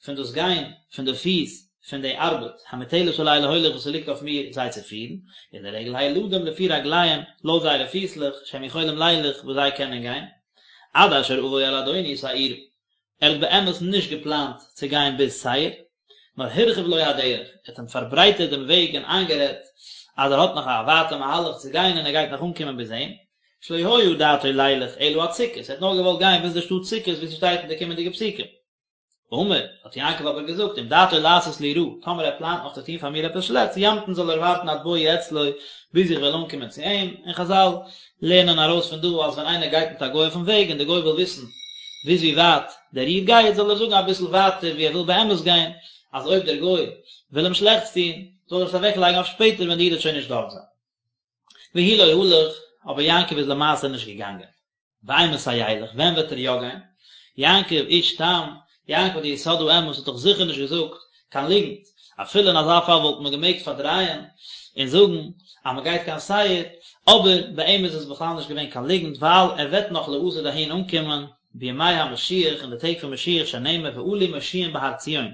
A: פון דאס גיין פון די פיס פון די ארבעט, המוטלת עלי להוליך וואס ס'ליגט אויף מיר זיי צו פירן, און לרגל הילדים לפי רגליהם לויט זייערע פיסלעך שהם יכולים לילך וואס זיי קענען גיין, עד אשר אבוא אל אדוני שעירה. ער האט באמת נישט געפלאנט צו גיין ביז שעיר, נאר הרחיב לו הדרך, ער האט אים פארברייטערט דעם וועג און איינגערעדט אז ער האט נאך א ווייטע מהלך צו גיין און ער גייט נאך אנקומען ביז אים, שלא היה דעתו לילך אלא עד סוכות, ער האט נאר געוואלט גיין ביז די שטאט סוכות ווי ס'שטייט אין די קומענדיגע פסוקים. אמר, האט יעקב אבער געזאגט, אם דעתו לעשות לי רע, טאמער ער פלאנט נאך צו טון פאר מיר עפעס שלעכטס, ימתין זאל ער ווארטן עד בואי אצלו, ביז איך וועל אנקומען צו אים, און חזל לערנען ארויס פון דא אז ווען איינער גייט מיט א גוי אויפן וועג און דער גוי וויל וויסן ביז ווי ווייט דער איד גייט זאל ער זאגן אביסל ווייטער ווי ער וויל באמת גיין, אז אויב דער גוי וויל אים שלעכטס טון זאל ער עס אוועק לייגן אויף שפעטער ווען די איד וועט שוין נישט דארט זיין. והוא לא הלך, אבער יעקב איז למעשה נישט געגאנגען. ואימתי ילך, ווען וועט ער יא גיין? יעקב איש תם, יעקב די יסוד האמת האט דאך זיכער נישט געזאגט קיין ליגנט, אפילו אין אזא פאל וואלט מען געמעגט פארדרייען און זאגן אז מען גייט קיין שעיר, אבער ביי אים איז עס בכלל נישט געווען קיין ליגנט ווייל ער וועט נאך לעתיד אהין אנקומען בימי המשיח אין די טעג פון משיח שנאמר ועלו מושיעים בהר ציון,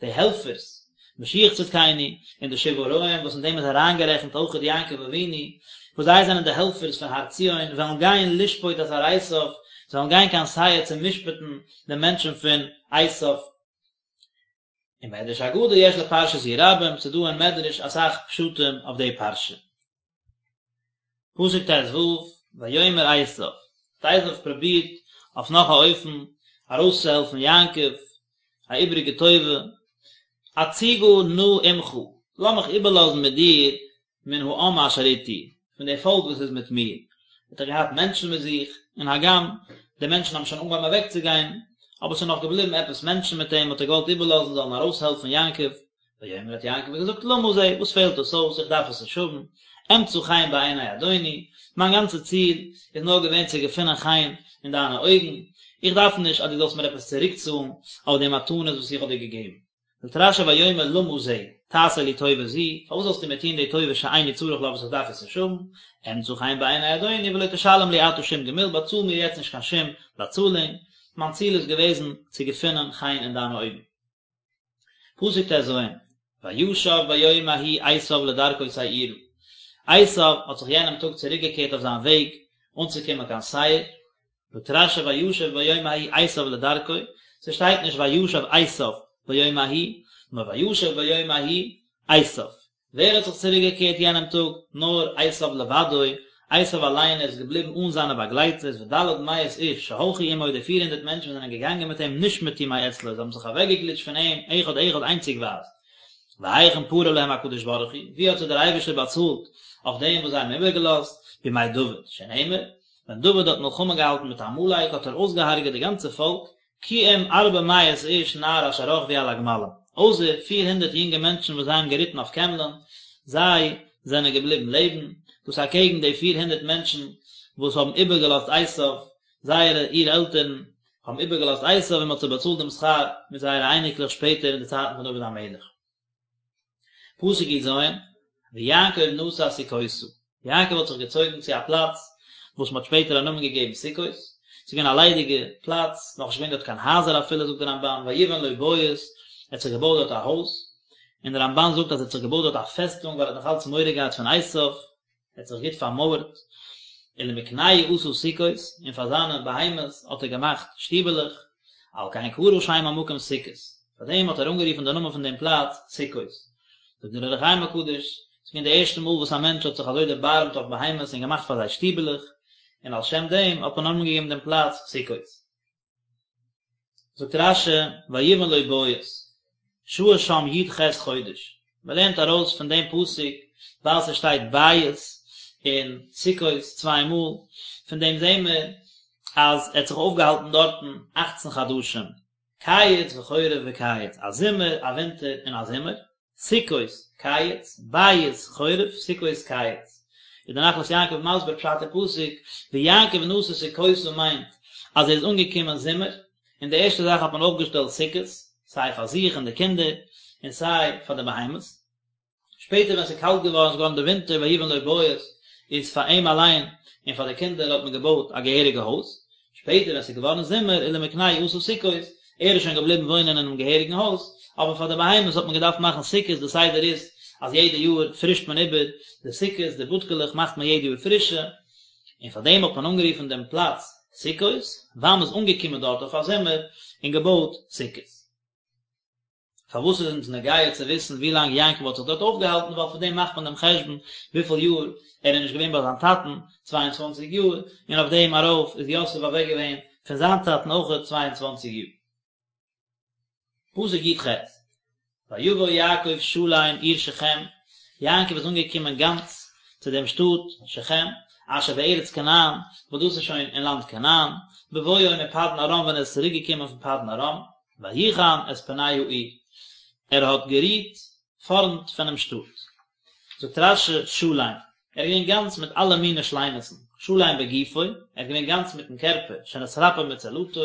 A: די העלפערס משיח צדקינו, און די שבעה רועים וואס אין דעם איז אריינגערעכנט אויכעט יעקב אבינו, וואס זיי זענען די העלפערס פון הר ציון, וועלן גיין לשפוט את הר עשיו, זיי וועלן גיין קיין שעיר צו משפט'ן די מענטשן פון עשיו. ומדרש אגדה יש לפרשה זו רבים, ס'איז דא אין מדרש אסאך פשטים אויף די פרשה. פסוק ט ו, ויאמר עשיו, האט עשיו פרובירט אויף נאך א אופן ארויסצוהעלפן יעקב, א איבריגע טובה, אציגה נא עמך, לאמיך איבערלאזן מיט דיר מן העם אשר אתי, פון די פאלק וואס איז מיט מיר, האט ער געהאט מענטשן מיט זיך, און הגם די מענטשן האבן שוין אנגעהויבן אוועקצוגיין, אבער ס'איז נאך געבליבן עפעס מענטשן מיט אים, האט ער געוואלט איבערלאזן זאלן ארויסהעלפן יעקב, ויאמר האט יעקב געזאגט למה זה, וואס פעלט דאס אויס, איך דארף עס נישט האבן, אמצא חן בעיני אדוני, מיין גאנצע ציל איז נאר געווען צו געפינען חן אין דיינע אויגן, איך דארף נישט אז דו זאלסט מיר עפעס צוריקצאלן אויף די מתנות וואס איך האב דיר געגעבן. זאגט רשי ויאמר למה זה, תעשה לי טובה זו, פארוואס זאלסטו מיר טון די טובה שאיני צריך לה וואס איך דארף עס נישט האבן, אמצא חן בעיני אדוני ולא תשלם לי עתה שום גמול, באצאל מיר יעצט נישט קיין שום באצאלונג. מיין ציל איז געוועזן צו געפינען חן אין דיינע אויגן. פסוק טז, וישב ביום ההוא עשיו לדרכו שעירה, עשיו האט זיך יענעם טאג צוריקגעקערט אויף זיין וועג אנצוקומען קיין שעיר, זאגט רשי וישב ביום ההוא עשיו לדרכו, ס'שטייט נישט וישב עשיו ביום ההוא, נאר וישב ביום ההוא עשיו. ווער האט זיך צוריק געקערט יענעם טאג? נאר עשיו לבדו, עשיו אליין איז געבליבן אן זיינע באגלייטערס, וד' מאות איש שהלכו עמו די פיר הונדערט מענטשן וואס זענען געגאנגען מיט אים נשמטו מאצלו זיי האבן זיך אוועקגעגליטשט פון אים אחד אחד איינציגווייז. והיכן פרע להם הקדוש ברוך הוא, ווי האט זיי דער אייבערשטער באצאלט אויף דעם וואס זיי האבן איבערגעלאזט, בימי דוד, שנאמר, ווען דוד האט מלחמה געהאלטן מיט עמלק האט ער אויסגעהארגעט די גאנצע פאלק, כי אם ארבע מאות איש נער אשר רכבו על הגמלים, אויסער פיר הונדערט יונגע מענטשן וואס זיי האבן געריטן אויף קעמלען, זיי זענען געבליבן לעבן, דאס אקעגן די פיר הונדערט מענטשן וואס האבן איבערגעלאזט עשיו, זייערע אור עלטערן האבן איבערגעלאזט עשיו און מען האט זיי באצאלט דעם שכר מיט זייערע אייניקלעך שפעטער אין די צייטן פון דוד המלך. פסוק יז, ויעקב נסע סוכותה, יעקב האט זיך געצויגן צו א פלאץ וואס מען האט שפעטער א נאמען געגעבן סוכות, ס'איז געווען א ליידיגע פלאץ, נאכנישט געווען דארט קיין הייזער אפילו, זאגט דער רמבן, ויבן לו בית, ער האט זיך געבויט דארט א הויז, און דער רמבן זאגט אז ער האט זיך געבויט דארט א פעסטונג ווייל ער האט נאך אלץ מורא געהאט פון עשיו, ער האט זיך גוט פארמויערט, ולמקנהו עשה סוכות, און פאר זיינע בהמות האט ער געמאכט שטיבעלעך, על כן קרא שם המקום סוכות, פאר דעם האט ער אנגערופן די נאמען פון דעם פלאץ סוכות. זאגט דער אור החיים הקדוש, ס'איז געווען די ערשטע מאל וואס א מענטש האט זיך אזוי דערבארעמט אויף בהמות און געמאכט פאר זיי שטיבעלעך, און על שם דעם האט מען א נאמען געגעבן דעם פלאץ סוכות. זאגט רשי, ויבן לו בית, שהה שם י"ח חודש, מען לערנט ארויס פון דעם פסוק ווייל ס'שטייט בית און סוכות צוויי מאל, פון דעם זעהן מיר אז ער האט זיך אויפגעהאלטן דארטן אכצן חדשים, קיץ וחורף וקיץ, א זומער, א ווינטער און א זומער. סוכות, קיץ, בית, חורף, סוכות, קיץ. איז דער נחלת יעקב מסביר פשט אין פסוק, ויעקב נסע סוכותה מיינט אז ער איז אנגעקומען זומער, און די ערשטע זאך האט מען אויפגעשטעלט סוכות, סיי פאר זיך און די קינדער, און סיי פאר די בהמות. שפעטער ווען ס'איז קאלט געווארן, ס'איז געווארן די ווינטער ויבן לו בית, איז פאר אים אליין און פאר די קינדער האט מען געבויט א געהעריגע הויז. שפעטער ווען ס'איז געווארן זומער ולמקנהו עשה סוכות, ער איז שוין געבליבן וואוינען אינעם געהעריגן הויז, אבער פאר די בהמות האט מען געדארפט מאכן סוכות, די סדר איז אז יעדע יאר פרישט מען איבער די סוכות, די בודקעלעך מאכט מען יעדע יאר פרישע, און פאר דעם האט מען אנגערופן דעם פלאץ סוכות, ווייל מ'איז אנגעקומען דארט אויף א זומער און געבויט סוכות. פארוואס איז אונז נוגע צו וויסן ווי לאנג יעקב האט זיך דארט אויפגעהאלטן, ווייל פון דעם מאכט מען דעם חשבון וויפיל יאר ער איז נישט געווען ביי זיין טאטן, צוויי און צוואנציג יאר, און אויף דעם ארויף איז יוסף אוועק געווען פון זיין טאטן אויכעט צוויי און צוואנציג יאר. פסוק י"ח, ויבא יעקב שלם עיר שכם, יעקב איז אנגעקומען גאנץ צו דעם שטאט שכם, אשר בארץ כנען, וואס דאס איז שוין אין לאנד כנען, בבואו מפדן ארם ווען ער איז צוריק געקומען פון פדן ארם, ויחן את פני העיר, ער האט גערוהט פארנט פונעם שטאט. זאגט רש"י שלם, ער איז געווען גאנץ מיט אלע מיני שלימות'ן, שלם בגופו, ער איז געווען גאנץ מיטן קערפער, שנתרפא מצלעתו,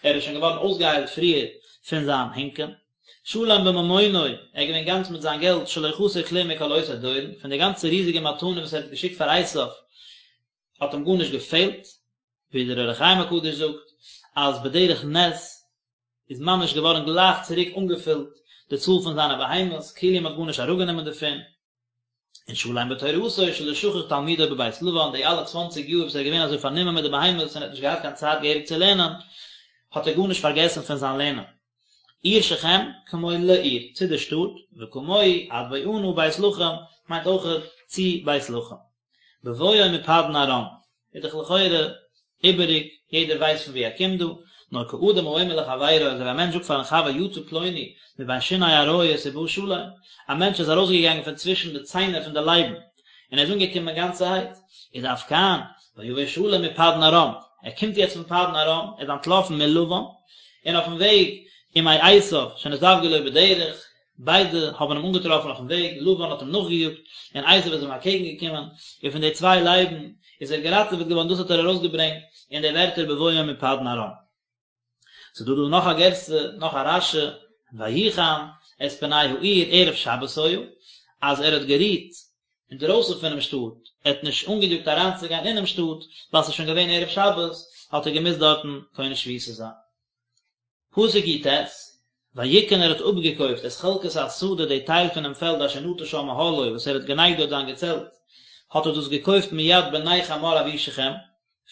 A: ער איז שוין געווארן אויסגעהיילט פריער פון זיין הינקען, שלם בממונו, ער איז געווען גאנץ מיט זיין געלט, שלא חסר כלום מכל אותו דורון, פון די גאנצע ריזיגע מתנה וואס ער האט געשיקט פאר עשיו, האט אים גארנישט געפעלט, ווי דער אור החיים הקדוש זאגט אז בדרך נס איז ממש געווארן גלייך צוריק אנגעפילט די צאל פון זיינע בהמות, כאילו מען האט גארנישט אראפגענומען דערפון, און שלם בתורתו שלא שכח תלמודו בבית לבן, די אלע צוואנציג יאר וואס ער איז געווען אזוי פארנומען מיט די בהמות און האט נישט געהאט קיין צייט געהעריג צו לערנען, האט ער גארנישט פארגעסן פון זיין לערנען. עיר שכם, כמו לעיר, צו די שטאט, וכמוהו עד בואנה בית לחם, מיינט אויכעט צו בית לחם. בבואו מפדן ארם, איז דאך לכאורה איבעריג, יעדער ווייסט פון וואו ער קומט דא, נאר כאדם האומר לחבירו, אזוי ווי א מענטש זאגט פארן חבר יצא פלוני מבין שיני אריות ובא שלם, א מענטש איז ארויסגעגאנגען פון צווישן די ציינער פון די לייבן, און ער איז אנגעקומען גאנצערהייט, איז אף כאן, ויבא שלם מפדן ארם, ער קומט יעצט פון פדן ארם, ער איז אנטלאפן מלבן, און אויפן וועג ומעשו שנזדווגו לו בדרך, ביידע האבן אים אנגעטראפן אויפן וועג, לבן האט אים נאכגעיאגט, און עשו איז אים אקעגן געקומען, און פון די צוויי לייבן איז ער געראטעוועט געווארן, דאס האט ער ארויסגעברענגט אין די ווערטער בבואו מפדן ארם. ס'איז דא דא נאך א גירסא, נאך א רש"י, ויחן את פני העיר ערב שבת היה, אז ער האט גערוהט. אינדרויסן פונעם שטאט, ער האט נישט אנגעיאגט אריינצוגיין אינעם שטאט, ווייל ס'איז שוין געווען ערב שבת, האט ער געמוזט דארטן קונה שביתה זיין. פסוק י"ט, ויקן ער האט אפגעקויפט את חלקת השדה די טייל פונעם פעלד אשר נטה שם אהלו וואס ער האט גענייגט דארט זיין געצעלט, האט ער דאס געקויפט מיד בני חמור אבי שכם,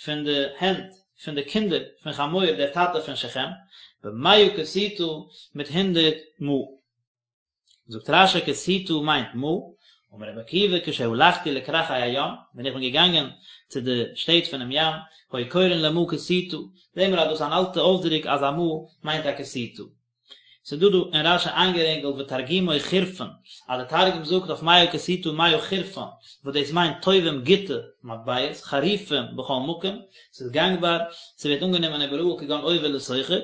A: פון די הענט פון די קינדער פון חמור דער טאטע פון שכם, במאה קשיטה מיט הונדערט מעה. זאגט רש"י קשיטה מיינט מעה, אמר רבי עקיבא כשהלכתי לכרכי הים, ווען איך בין געגאנגען צו די שטעט פונעם ים, היו קורין למעה קשיטה, זעהן מיר אז דאס איז אן אלטע אויסדרוק אז א מעה מיינט א קשיטה. ס'איז דא דא אין רש"י איינגערינגלט ותרגומו חורפין, אז די תרגום זאגט אויף מאה קשיטה מאה חורפן, וואס דאס מיינט טובים גוטע מטבעות, חריפים בכל מקום, ס'איז גאנגבאר, ס'ווערט אנגענומען איבעראל כגון עובר לסוחר,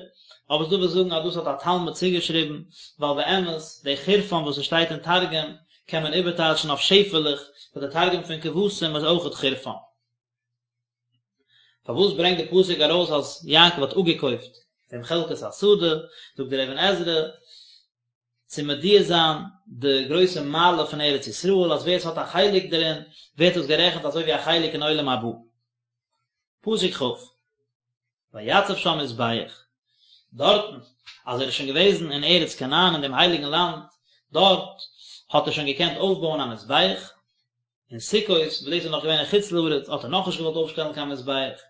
A: אבער ס'דא וואס זאגן אז דאס האט א תלמיד צוגעשריבן, ווייל באמת די חורפן וואס עס שטייט אין תרגום קען מען איבערטייטשן אויף שעפעלעך, ווייל די תרגום פון כבשים איז אויכעט חורפן. פארוואס ברענגט די פסוק ארויס אז יעקב האט אפגעקויפט דעם חלקת השדה, זאגט דער אבן עזרא, צו מודיע זיין די גרויסע מעלה פון ארץ ישראל, אז ווער עס האט א חלק דערין, ווערט עס גערעכנט אזוי ווי א חלק אין עולם הבא. פסוק כ', ויצב שם מזבח, דארטן, אז ער איז שוין געוועזן אין ארץ כנען אין דעם הייליגן לאנד, דארט האט ער שוין געקענט אויפבויען א מזבח, אין סוכות, וואס דאס איז נאך געווען אין חוץ לארץ, האט ער נאכנישט געוואלט אויפשטעלן קיין מזבח,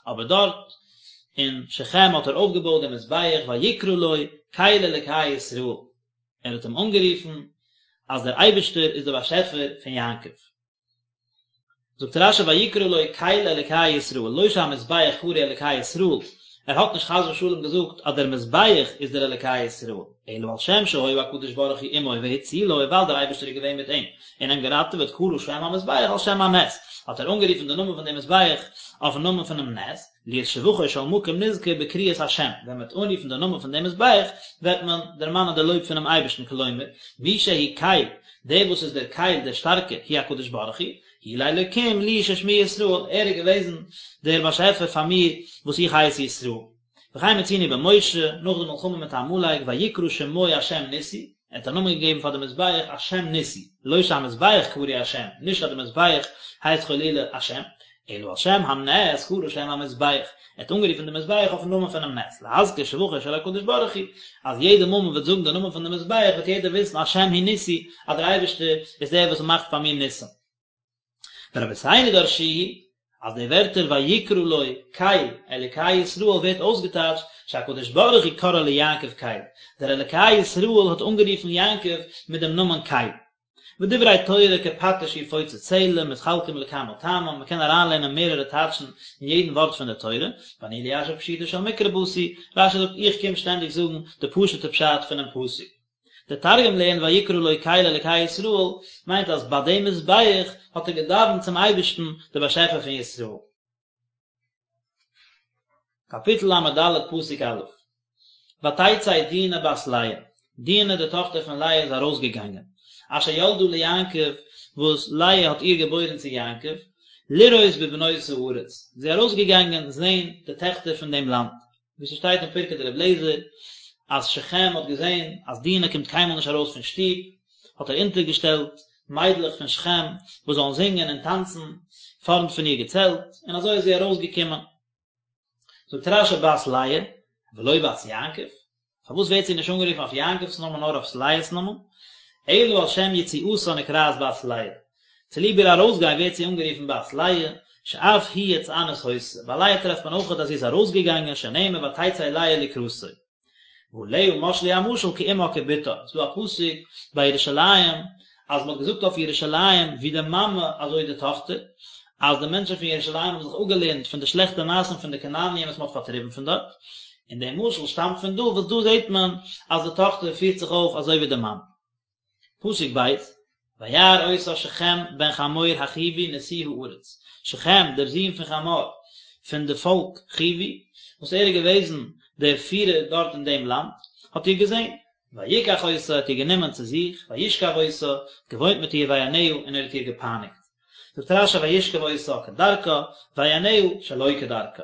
A: אבער דארט אין שכם האט ער אויפגעבויט דעם מזבח, ויקרא לו קל אלקי ישראל, ער האט אים אנגערופן אז דער אייבערשטער איז דער באשעפער פון יעקב. זאגט רש"י ויקרא לו קל אלקי ישראל, לא שהמזבח קרוי אלקי ישראל, ער האט נישט חס ושלום געזאגט אז דער מזבח איז דער אלקי ישראל, אלא על שם שהיה הקדוש ברוך הוא עמו והצילו, ווייל דער אייבערשטער איז געווען מיט אים און אים געראטעוועט קרא שם המזבח על שם הנס, האט ער אנגערופן די נאמען פון דעם מזבח אויפן נאמען פונעם נס, להיות שבחו של מקום נזכר בקריאת השם, ווען מען וועט אנרופן די נאמען פון דעם מזבח, וועט מען דערמאנען די לויב פונעם אייבערשטן, כלומר, מי שהוא קל, דער וואס איז דער קל דער שטארקער, הוא הקדוש ברוך הוא, הוא לאלקים לי ששמי ישראל, ער איז געוועזן דער באשעפער פאר מיר וואס איך הייס ישראל. וכן מצינו במשה, נאך די מלחמה מיט עמלק, ויקרא שמו השם ניסי, ער האט א נאמען געגעבן פאר די מזבח השם ניסי, לא שהמזבח קרוי השם, נישט אז די מזבח הייסט חלילה השם, אלא על שם הנס קרא שם המזבח, ער האט אנגערופן די מזבח אויפן נאמען פונעם נס, להזכיר שבחו של הקדוש ברוך הוא, אז יעדע מאל מען וועט זאגן די נאמען פון די מזבח וועט יעדער וויסן השם הוא ניסי, אז דער אייבערשטער איז דער וואס מאכט פאר מיר ניסים. ורבותינו דרשוהו, אז די ווערטער ויקרא לו קל אלקי ישראל ווערט אויסגעטייטשט שהקדוש ברוך הוא קרא ליעקב קל, דער אלקי ישראל האט אנגערופן יעקב מיט דעם נאמען קל. ודברי תורה כפטיש יפוצץ סלע מתחלקים לכמה טעמים, מען קען אריינלערנען מערערע טייטשן אין יעדן ווארט פון די תורה, ואני ליישב פשוטו של מקרא באתי, רש"י זאגט איך קום שטענדיג זאגן די פשוט'ע פשט פונעם פסוק. דער תרגום לערנט ויקרא לו קל אלקי ישראל מיינט אז ביי דעם מזבח האט ער געדאווענט צום אייבערשטן דער באשעפער פון ישראל. קאפיטל ל"ד פסוק א' ותצא דינה בת לאה, דינה די טאכטער פון לאה איז ארויסגעגאנגען, אשר ילדה ליעקב, וואס לאה האט איר געבוירן צו יעקב, לראות בבנות הארץ, זי איז ארויסגעגאנגען זען די טעכטער פון דעם לאנד. ווי ס'שטייט אין פרקי דרבי אליעזר אז שכם האט געזען אז דינה קומט קיינמאל נישט ארויס פון שטוב, האט ער אונטערגעשטעלט מיידלעך פון שכם וואס זאלן זינגען און טאנצן פארנט פון איר געצעלט, און אזוי איז זי ארויסגעקומען. זאגט רש"י בת לאה, ולא בת יעקב, פארוואס ווערט זי נישט אנגערופן אויף יעקב'ס נאמען נאר אויף לאה'ס נאמען? אלא על שם יציאתה נקראת בת לאה, צוליב איר ארויסגיין ווערט זי אנגערופן בת לאה, שאף היא יצאנית היתה, ביי לאה טרעפט מען אויכעט אז זי איז ארויסגעגאנגען שנאמר ותצא לאה לקראתו. ועליה משלו המשל כאמה כבתה, ס'איז דא א פסוק ביי ירושלים אז מ'האט געזאגט אויף ירושלים ווי די מאמע אזוי די טאכטער, אז די מענטשן פון ירושלים האבן זיך אפגעלערנט פון די שלעכטע מעשים פון די כנעניים וואס מ'האט פארטריבן פון דארט, און דער משל שטאמט פון דא וואס דא זעט מען אז די טאכטער פירט זיך אויף אזוי ווי די מאמע. פסוק ב', וירא אותה שכם בן חמור החוי נשיא הארץ, שכם דער זון פון חמור פון די פאלק חוי, וואס ער איז געוועזן דער פירער דארט אין דעם לאנד, האט איר געזען, ויקח אותה, האט איר גענומען צו זיך, וישכב אותה, געוואוינט מיט איר ויענה, און ער האט איר געפייניגט. זאגט רש"י וישכב אותה כדרכה, ויענה שלא כדרכה.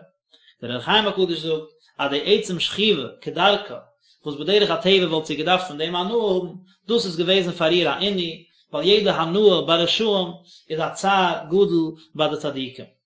A: דער אור החיים הקדוש זאגט אז די עצם שכיבה כדרכה, וואס בדרך הטבע וואלט זי געדארפט פון דעם הנאה האבן, דאס איז געוועזן פאר איר א עינוי, ווייל יעדע הנאה ביי רשעים איז א צער גדול ביי די צדיקים.